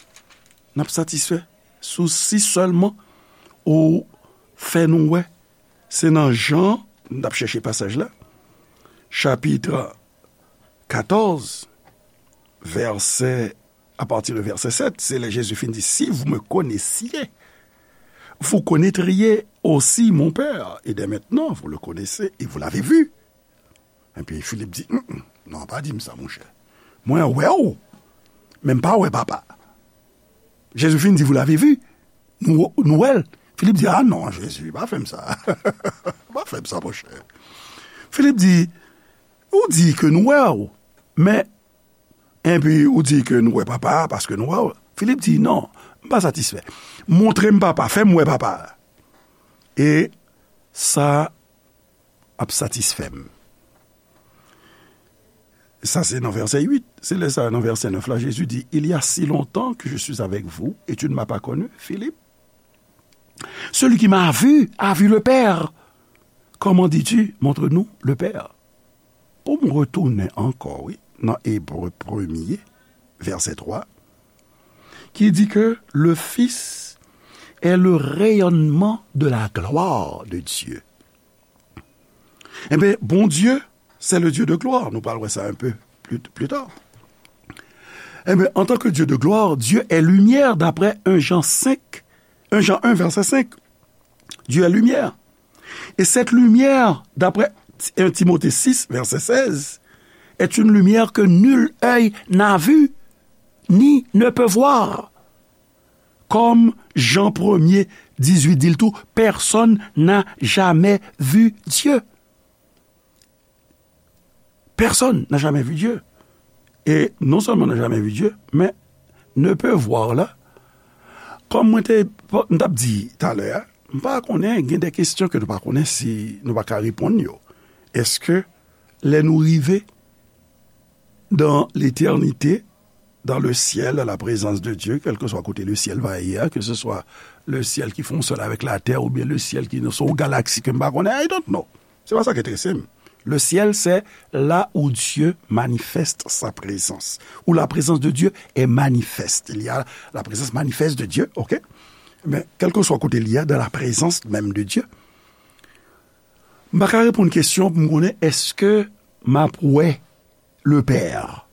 N ap satisfè sou si sèlman ou fè nou wè. Se nan Jan, n ap chèche pasaj la, chapit katòz, vèsè, à partir de verset sept, se lè Jezi fin di, Si vous me connaissiez, vous connaîtriez aussi mon Père, et dès maintenant, vous le connaissez et vous l'avez vu. Epi Filip di, "Mm, mm, non, pa di m sa, monchè. Mwen wè w, men m pa wè Papa." Jezi fin di, "Vous l'avez vu." Nou, nou wè l. Filip di, "Ah non, Jezi, pa fè m sa. Pa fè m sa, monchè." Filip di, "Ou di ke nou wè w, men, epi ou di ke nou wè Papa a paske nou wè w." Filip di, "Non, m pa satisfè. Montre m Papa, fè m wè Papa a. E sa ap satisfè m." Sa se nan vèsè uit. Se lè sa, nan vèsè nèf la, Jezi di, "Il y a si longtemps que je suis avec vous et tu ne m'as pas connu, Philippe? Celui qui m'a vu a vu le Père. Comment dis-tu, montre-nous le Père?" Pou m retounen ankò, wi, nan Ebre premye, vèsè twa, ki di ke le Fils est le rayonnement de la gloire de Dieu. Enben, Bondye, c'est le Dieu de gloire. Nou pral wè sa un peu plus, plus tard. Enben, en tant que Dieu de gloire, Dieu est lumière, d'après un Jean cinq, un Jean un, verset cinq. Dieu est lumière. Et cette lumière, d'après un Timothée six, verset seize, est une lumière que nul œil n'a vue, ni ne peut voir. Comme Jean premier, dix-huit, dit le tout, personne n'a jamais vu Dieu. Personne n'a jamais vu Dieu. Et non seulement n'a jamais vu Dieu, mais ne peut voir la. Kòm mwen te, m t ap di talè a, m pa konnen, gen de kesyon ke nou pa konnen si nou pa ka reponn yo. Èske lè nou rive dans l'éternité, dans le ciel, à la présence de Dieu, quel que soit côté le ciel va aller, hein, que ce soit le ciel qui fonctionne avec la terre ou bien le ciel qui sont aux galaxies que m pa konnen, I don't know. Se pa sa ki enterese m. Le ciel, c'est là où Dieu manifeste sa présence, où la présence de Dieu est manifeste. Il y a la présence manifeste de Dieu, ok? Mais quel que soit côté il y a, dans la présence même de Dieu, m pa ka reponn kesyon pou m konnen èske m ap wè le Père.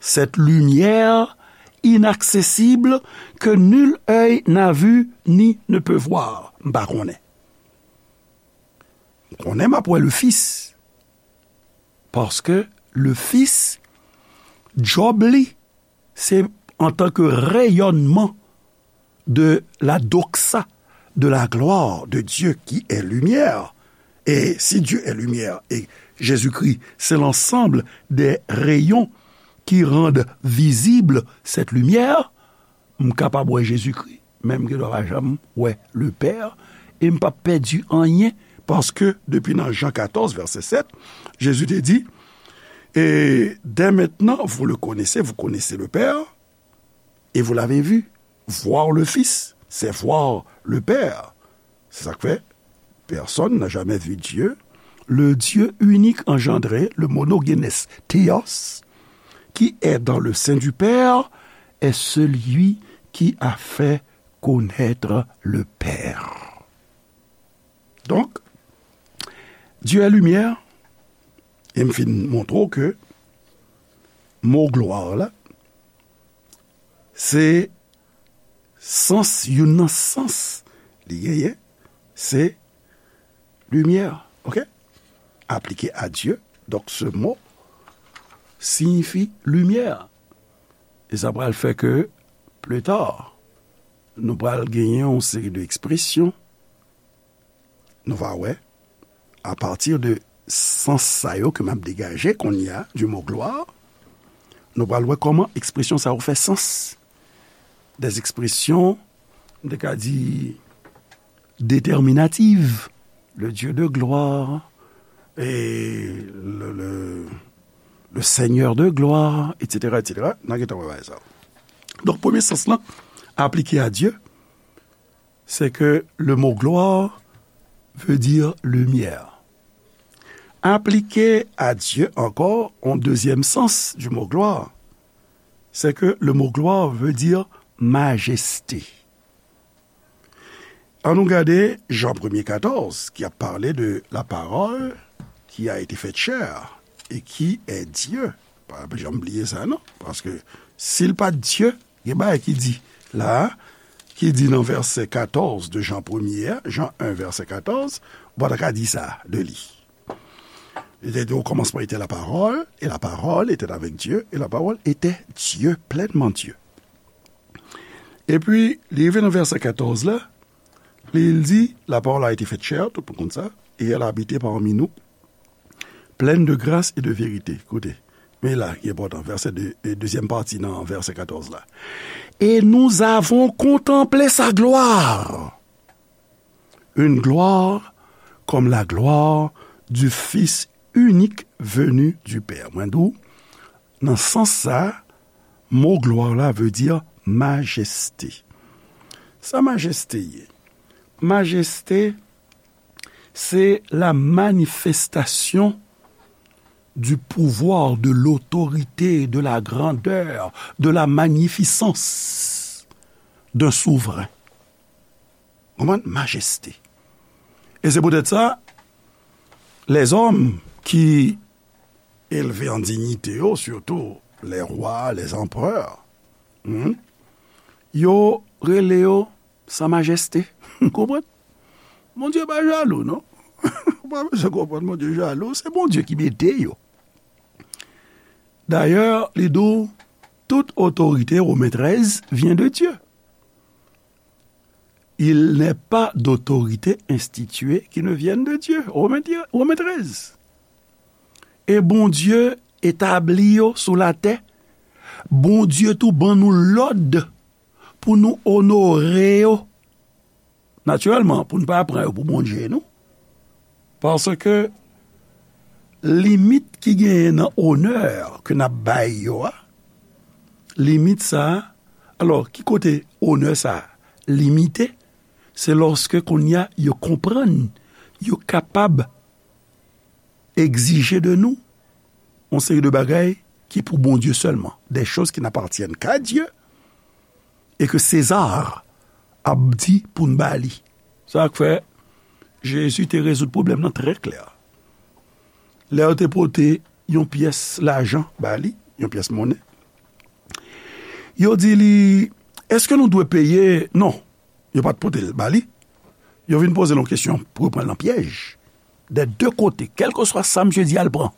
Cette lumière inaccessible que nul œil n'a vu ni ne peut voir. M pa konnen. M konnen m ap wè le Fils. Paske le Fils, djòb li, se antanke reyònman de la doxa, de la gloire de Dieu qui est lumière. Et si Dieu est lumière et Jésus-Christ, c'est l'ensemble des rayons qui rendent visible cette lumière, m kapab wè Jezikri, men m gen dwa pa janm wè le Père, e m p ap pèdi anyen, paske depi nan Jan katòz, vèsè sèt, Jezi te di, et dès maintenant, vous le connaissez, vous connaissez le Père, et vous l'avez vu. Voir le Fils, c'est voir le Père. Se sa k fè, personne n'a jamais vu Dieu. Le Dieu unique engendré, le monogenes theos, qui est dans le sein du Père, est celui qui a fait connaître le Père. Donk, Dieu est lumière, e m fin montre w ke mo glwa la, se sans, youn nan sans li genyen, se limyè, ok? Appliqué à Dieu, donc ce mot signifie lumière. E sa pral fè ke, plus tard, nou pral genyen yon seri de ekspresyon, nou va wè, à partir de sans sa yo ke m ap degaje kounye a, du mot gloire, nou pral wè kòman ekspresyon sa yo fè sans. Des expressions, m te ka di, déterminatives, le Dieu de gloire, et le, le, le Seigneur de gloire, et cetera, et cetera. N a gentan wè bagay sa yo. Donk, premye sans lan aplike a Dye, c'est que le mot gloire veut dire lumière. Aplike a Dye ankò, yon dezyèm sans du mot gloire, c'est que le mot gloire veut dire majesté. An nou gade Jan premye katòz, ki ap pale de la parole qui a été faite chair et qui est Dieu. Pa janm bliye sa, non. Paske si l pa t Dye, gen bagay ki di la, ki di nan vèsè katòz de Jan premye a, Jan en, vèsè katòz, ou pa ta ka di sa de li. Il était au commencement était la parole, et la parole était avec Dieu, et la parole était Dieu, pleinement Dieu. Epi, li rive nan vèsè katòz la, li di, la parole a été faite chair, tout moun konn sa, et elle a habité parmi nous, pleine de grâce et de vérité. Koute, men la ki enpòtan, vèsè de, e, dezyèm pati nan vèsè katòz la. Et nous avons contemplé sa gloire. Une gloire comme la gloire du Fils unique venu du Père. Mwen di w, nan sans sa, mo glwa la vle di majeste. Sa majeste ye? Majeste, se la manifestation du pouvoir, de l'autorité, de la grandeur, de la magnificence d'un souverain. Konprann? Majeste. E se poutèt sa, lèzòm ki elve an dinyite yo, sitou lè wa, lè anperè, hmm, yo rele yo sa majeste. Konprann? Bondye pa jalou, non. Ou pa bezwen konprann Bondye jalou, se Bondye ki mete yo. Dayè, li di w, tout otorite, Women trèz, vyen de Dye. Il n'est pas d'autorité instituée qui ne vienne de Dieu. Women, Women trèz. E Bondye etabli yo sou latè. Bondye tou ban nou lòd pou nou onore yo. Natirèlman, pou n pa pran yo pou Bondye, non. Paske limit ki genyen nan onè ke n ap bay yo a, limit sa a, alò, ki kote onè sa a limite? Se lòske kounye a yo konprann yo kapab egzije de nou yon seri de bagay ki pou Bondye sèlman, des choses qui n'appartiennent qu'à Dieu, e ke Seza ap di pou n ba li. Sa k fè Jezi te rezoud pwoblèm nan trè klè. Lè yo te pote yon pyès lajan ba li, yon pyès monnen, yo di li, èske nou dwe peye? Non, yo pa t pote l ba li. Yo vin poze l yon kesyon pou yo pran l nan pyèj. Dè de kote, kèlkeswa sa misye di a, l pran.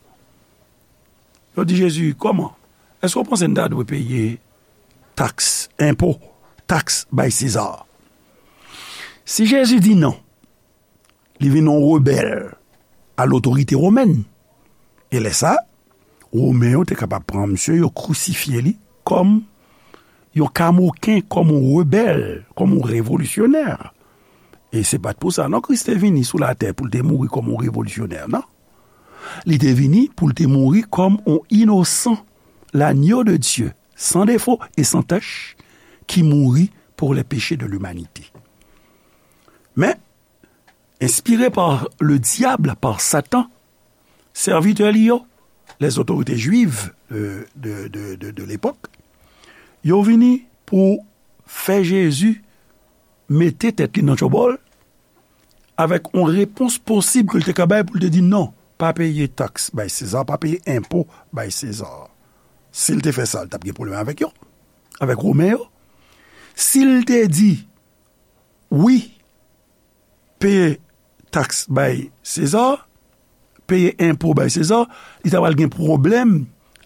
Yo di Jezi, kòman? Èske w panse n ta dwe peye taks, enpo, taks bay Seza? Si Jezi di non, li vin yon rebèl a lotorite womèn. E lè sa, Women yo te kapab pran misye, yo krisifye li kòm yon kamoken, kòm yon rebèl, kòm yon revolisyonè. E se pa t pou sa, non, Kris te vini sou latè pou l te mouri kòm yon revolisyonè, non. Li te vini pou l te mouri kòm yon inosan, l'agneau de Dieu, sans défaut et sans tache, qui mourut pour les péchés de l'humanité. Men, inspiré par le diable, par Satan, sèvitè li yo, les autorités juives de, de, de, de, de l'époque, yo vini pou fè Jezi mete tèt li nan tchòbòl, avèk yon repons posib ke l te ka bay pou l te di non, pa peye taks bay Seza, pa peye enpo bay Seza. Si l te fè sa, l t ap gen pwoblèm avèk yo, avèk Women yo. Si l te di wi, peye taks bay Seza, peye enpo bay Seza, li ta pral gen pwoblèm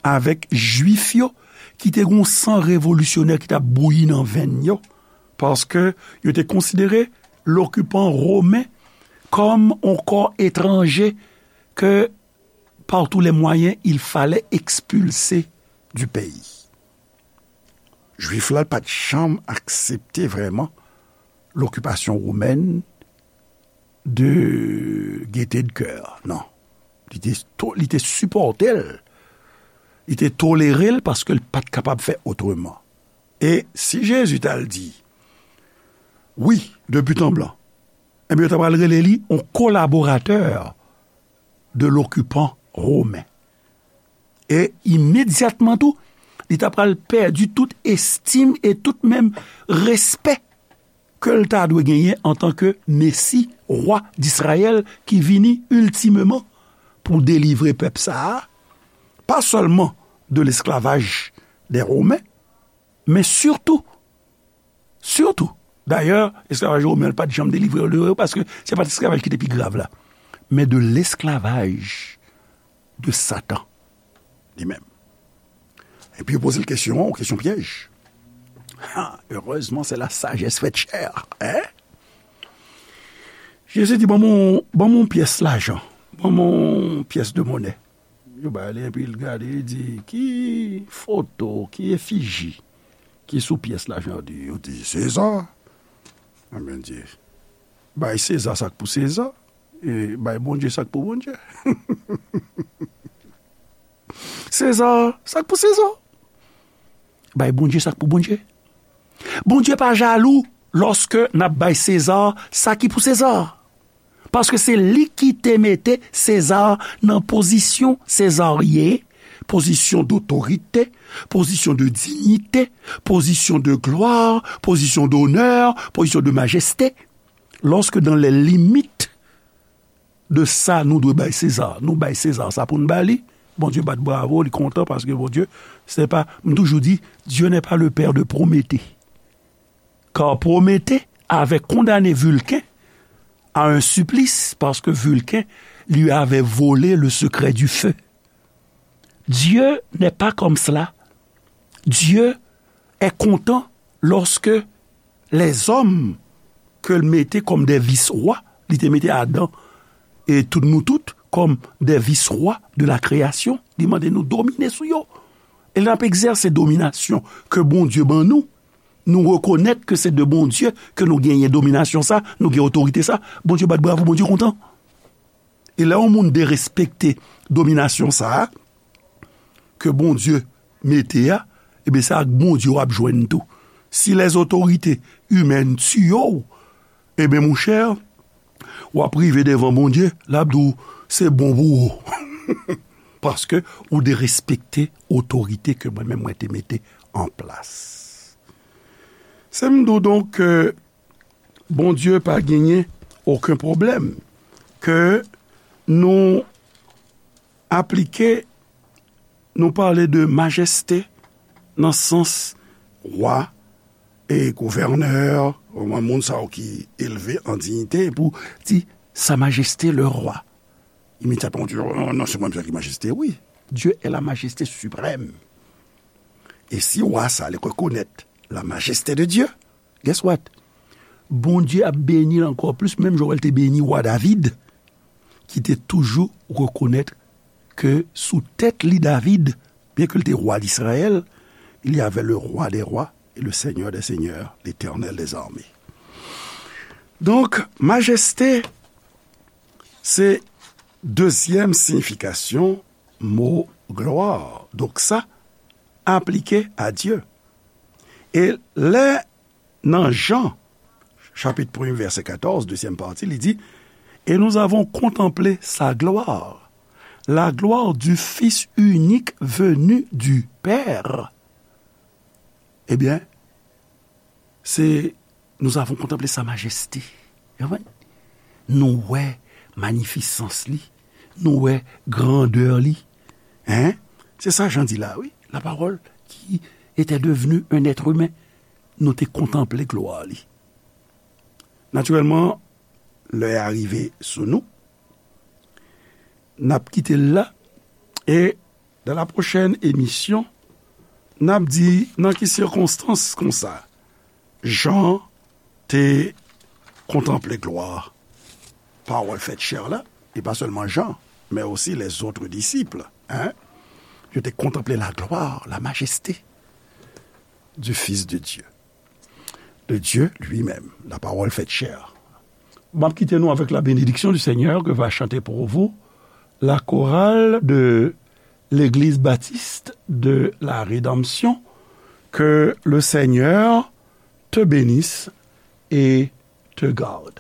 avèk Jwif yo, ki te gen yon san revolisyonè ki t ap bouyi nan venn yo, paske yo te konsidere lokipan women kòm yon kò etranje ke par tous les moyens, il fallait expulser du pays. Jwif la pa t janm aksepte vrèman lokipasyon womèn de gaieté de cœur, non. Li te, to- li te sipòte l, li te tolere l paske l pa t kapab fè otreman. E si Jezi t al di, wi, de but en blanc, ebyen, yo ta pral rele li yon kolaboratè de lokipan women. E imedyatman tou, li ta pral pèdi tout estim e tout menm respè ke l ta dwe genyen antanke Mesi, wa Disrayèl ki vini iltimeman pou delivre pèp sa a, pa sèlman de lesklavaj dè Women, men sitou, sitou, dayè, esklavaj women an pa t janm delivre yo de yo, paske se pa t esklavaj ki te pi grav la, men de lesklavaj de Satan li menm. Epi yo poze l kesyon an, yon kesyon pyèj. Ha, heureusement, c'est la sagesse faite chair, hein? Jezi di, ban m yon, ban m yon pyès lajan, ban m yon pyès de monè. Yo ba li, epi l gade, li di, ki foto, ki efiji ki sou pyès lajan? Yo di, yo di, Seza. Ebyen, di, bay Seza sa k pou Seza, e bay Bondye sa k pou Bondye. Seza, sa k pou Seza. Bay Bondye sa k pou Bondye. Bondye pa jalou lòske n ap bay Seza sa ki pou Seza. Paske se li ki te mete Seza nan pozisyon Seza ye, pozisyon dotorite, pozisyon de diyite, pozisyon de glwa, pozisyon donè, pozisyon de majeste. Lòske dans les limites de sa nou dwe bay Seza, nou bay Seza sa pou n ba li, Bondye bat bravo, li kontan paske Bondye, se pa, m toujou di, Dieu n'est pas le père de Prométhée. Car Prométhée avait condamné Vulcain à un supplice parce que Vulcain lui avait volé le secret du feu. Dieu n'est pas comme cela. Dieu est content lorsque les hommes ke l mete kòm de vis-wa, li te mete Adan e tout nou tout kòm de vis-wa de la kreyasyon, li mande nou domine sou yo. E lè n ap egzèse dominasyon ke Bondye ban nou, nou rekonèt ke se de Bondye ke nou genyen dominasyon sa, nou gen otorite sa, Bondye bat bravo, Bondye kontan. E lè yon moun derespekte dominasyon sa a, ke Bondye mete a, ebyen, se ak Bondye w ap jwenn tou. Si les autorités humaines tiye w, ebyen, monchè, w ap rive devan Bondye, l ap di w, se bon pou ou. Paske ou derespekte otorite ke mwen menm mwen te mete an plas. Se m di w donk ke Bondye pa genyen okenn pwoblèm ke nou aplike, nou pale de majeste nan sans wa e gouvènè, moun sa yo ki elve an diyite, pou di, Sa Majeste le Rwa. Imedyatman, ou di, "Oh, non, non, se mwen menm ki majeste." Wi, Dieu est la majesté suprême. E si wa sa, li rekonèt la majesté de Dieu, guess what? Bondye ap beni l ankò plis, menm jan w wè l te beni wa David, ki te toujou rekonèt ke sou tèt li, David, byen ke l te wa Izrayèl, il y avait le Roi des rois et le Seigneur des seigneurs, l'Éternel des armées. Donk, majeste, se dezyèm siyifikasyon mo glwa. Donk, sa aplike a Dye. E lè nan Jan, chapit premye, vèsè katòz, dezyèm pati, li di, Et nous avons contemplé sa gloire, la gloire du Fils unique venu du Père. Ebyen, se, nous avons contemplé sa majesté. Ou konprann? Nou wè manifisans li, nou wè grandè li. Hein? Se sa Jan di la, wi. La parole qui était devenue un être humain. Nou te kontanple glwa li. Natirèlman, lè a rive sou nou, n ap kite l la, e dans la prochaine émission, n ap di nan ki sikonstans konsa Jan te kontanple glwa Pawòl fèt chè la, e pa sèlman Jan, men osi les autres disciples, hein? Yo te kontanple la gloire, la majesté du Fils de Dieu, de Dieu lui-même, la parole faite chair. M ap kite nou avèk la bénédiction du Seigneur que va chanter pour vous la chorale de l'Église Baptiste de la Rédemption. Que le Seigneur te bénisse et te garde.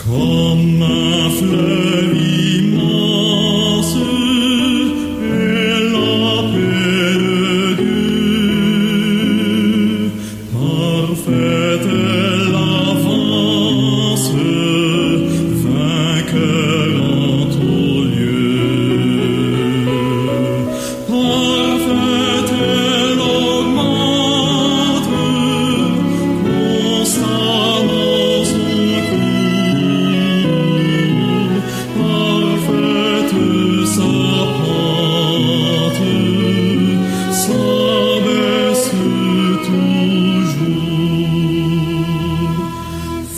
Comme un fleuve immense est la paix de Dieu. Parfaite est l'avance, vainqueur en tout lieu. Parfaite, elle augmente constamment son cours. Parfaite sa pente, s'abaisse toujours.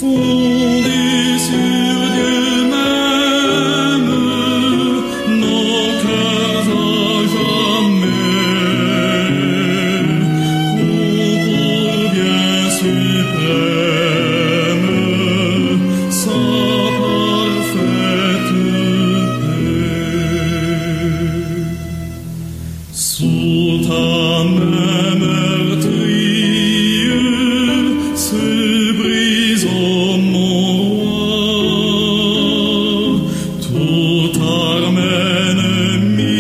Fondée sur Dieu même, nos cœurs à jamais ont pour bien suprême sa parfaite paix. Sous ta main meurtrie se brise, ô mon roi, toute arme ennemie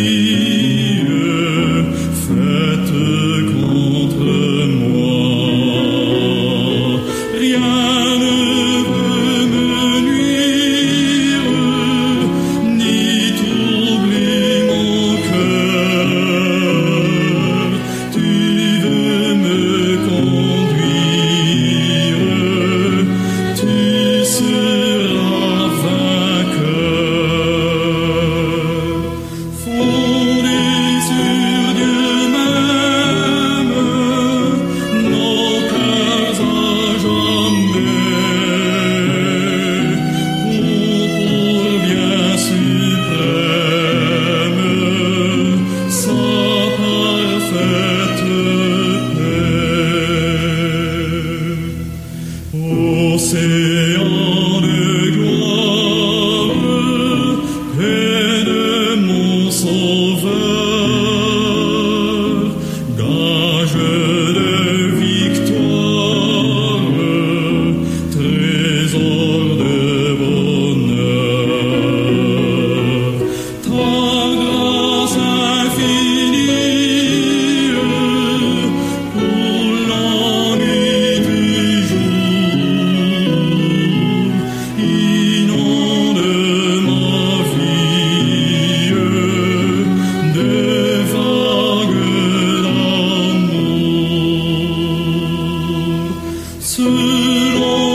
faite contre moi. Rien ne peut me nuire, ni troubler mon cœur. Tu veux me conduire, tu seras vainqueur. Fondés sur Dieu même, nos cœurs à jamais ont pour bien suprême sa parfaite paix. Océan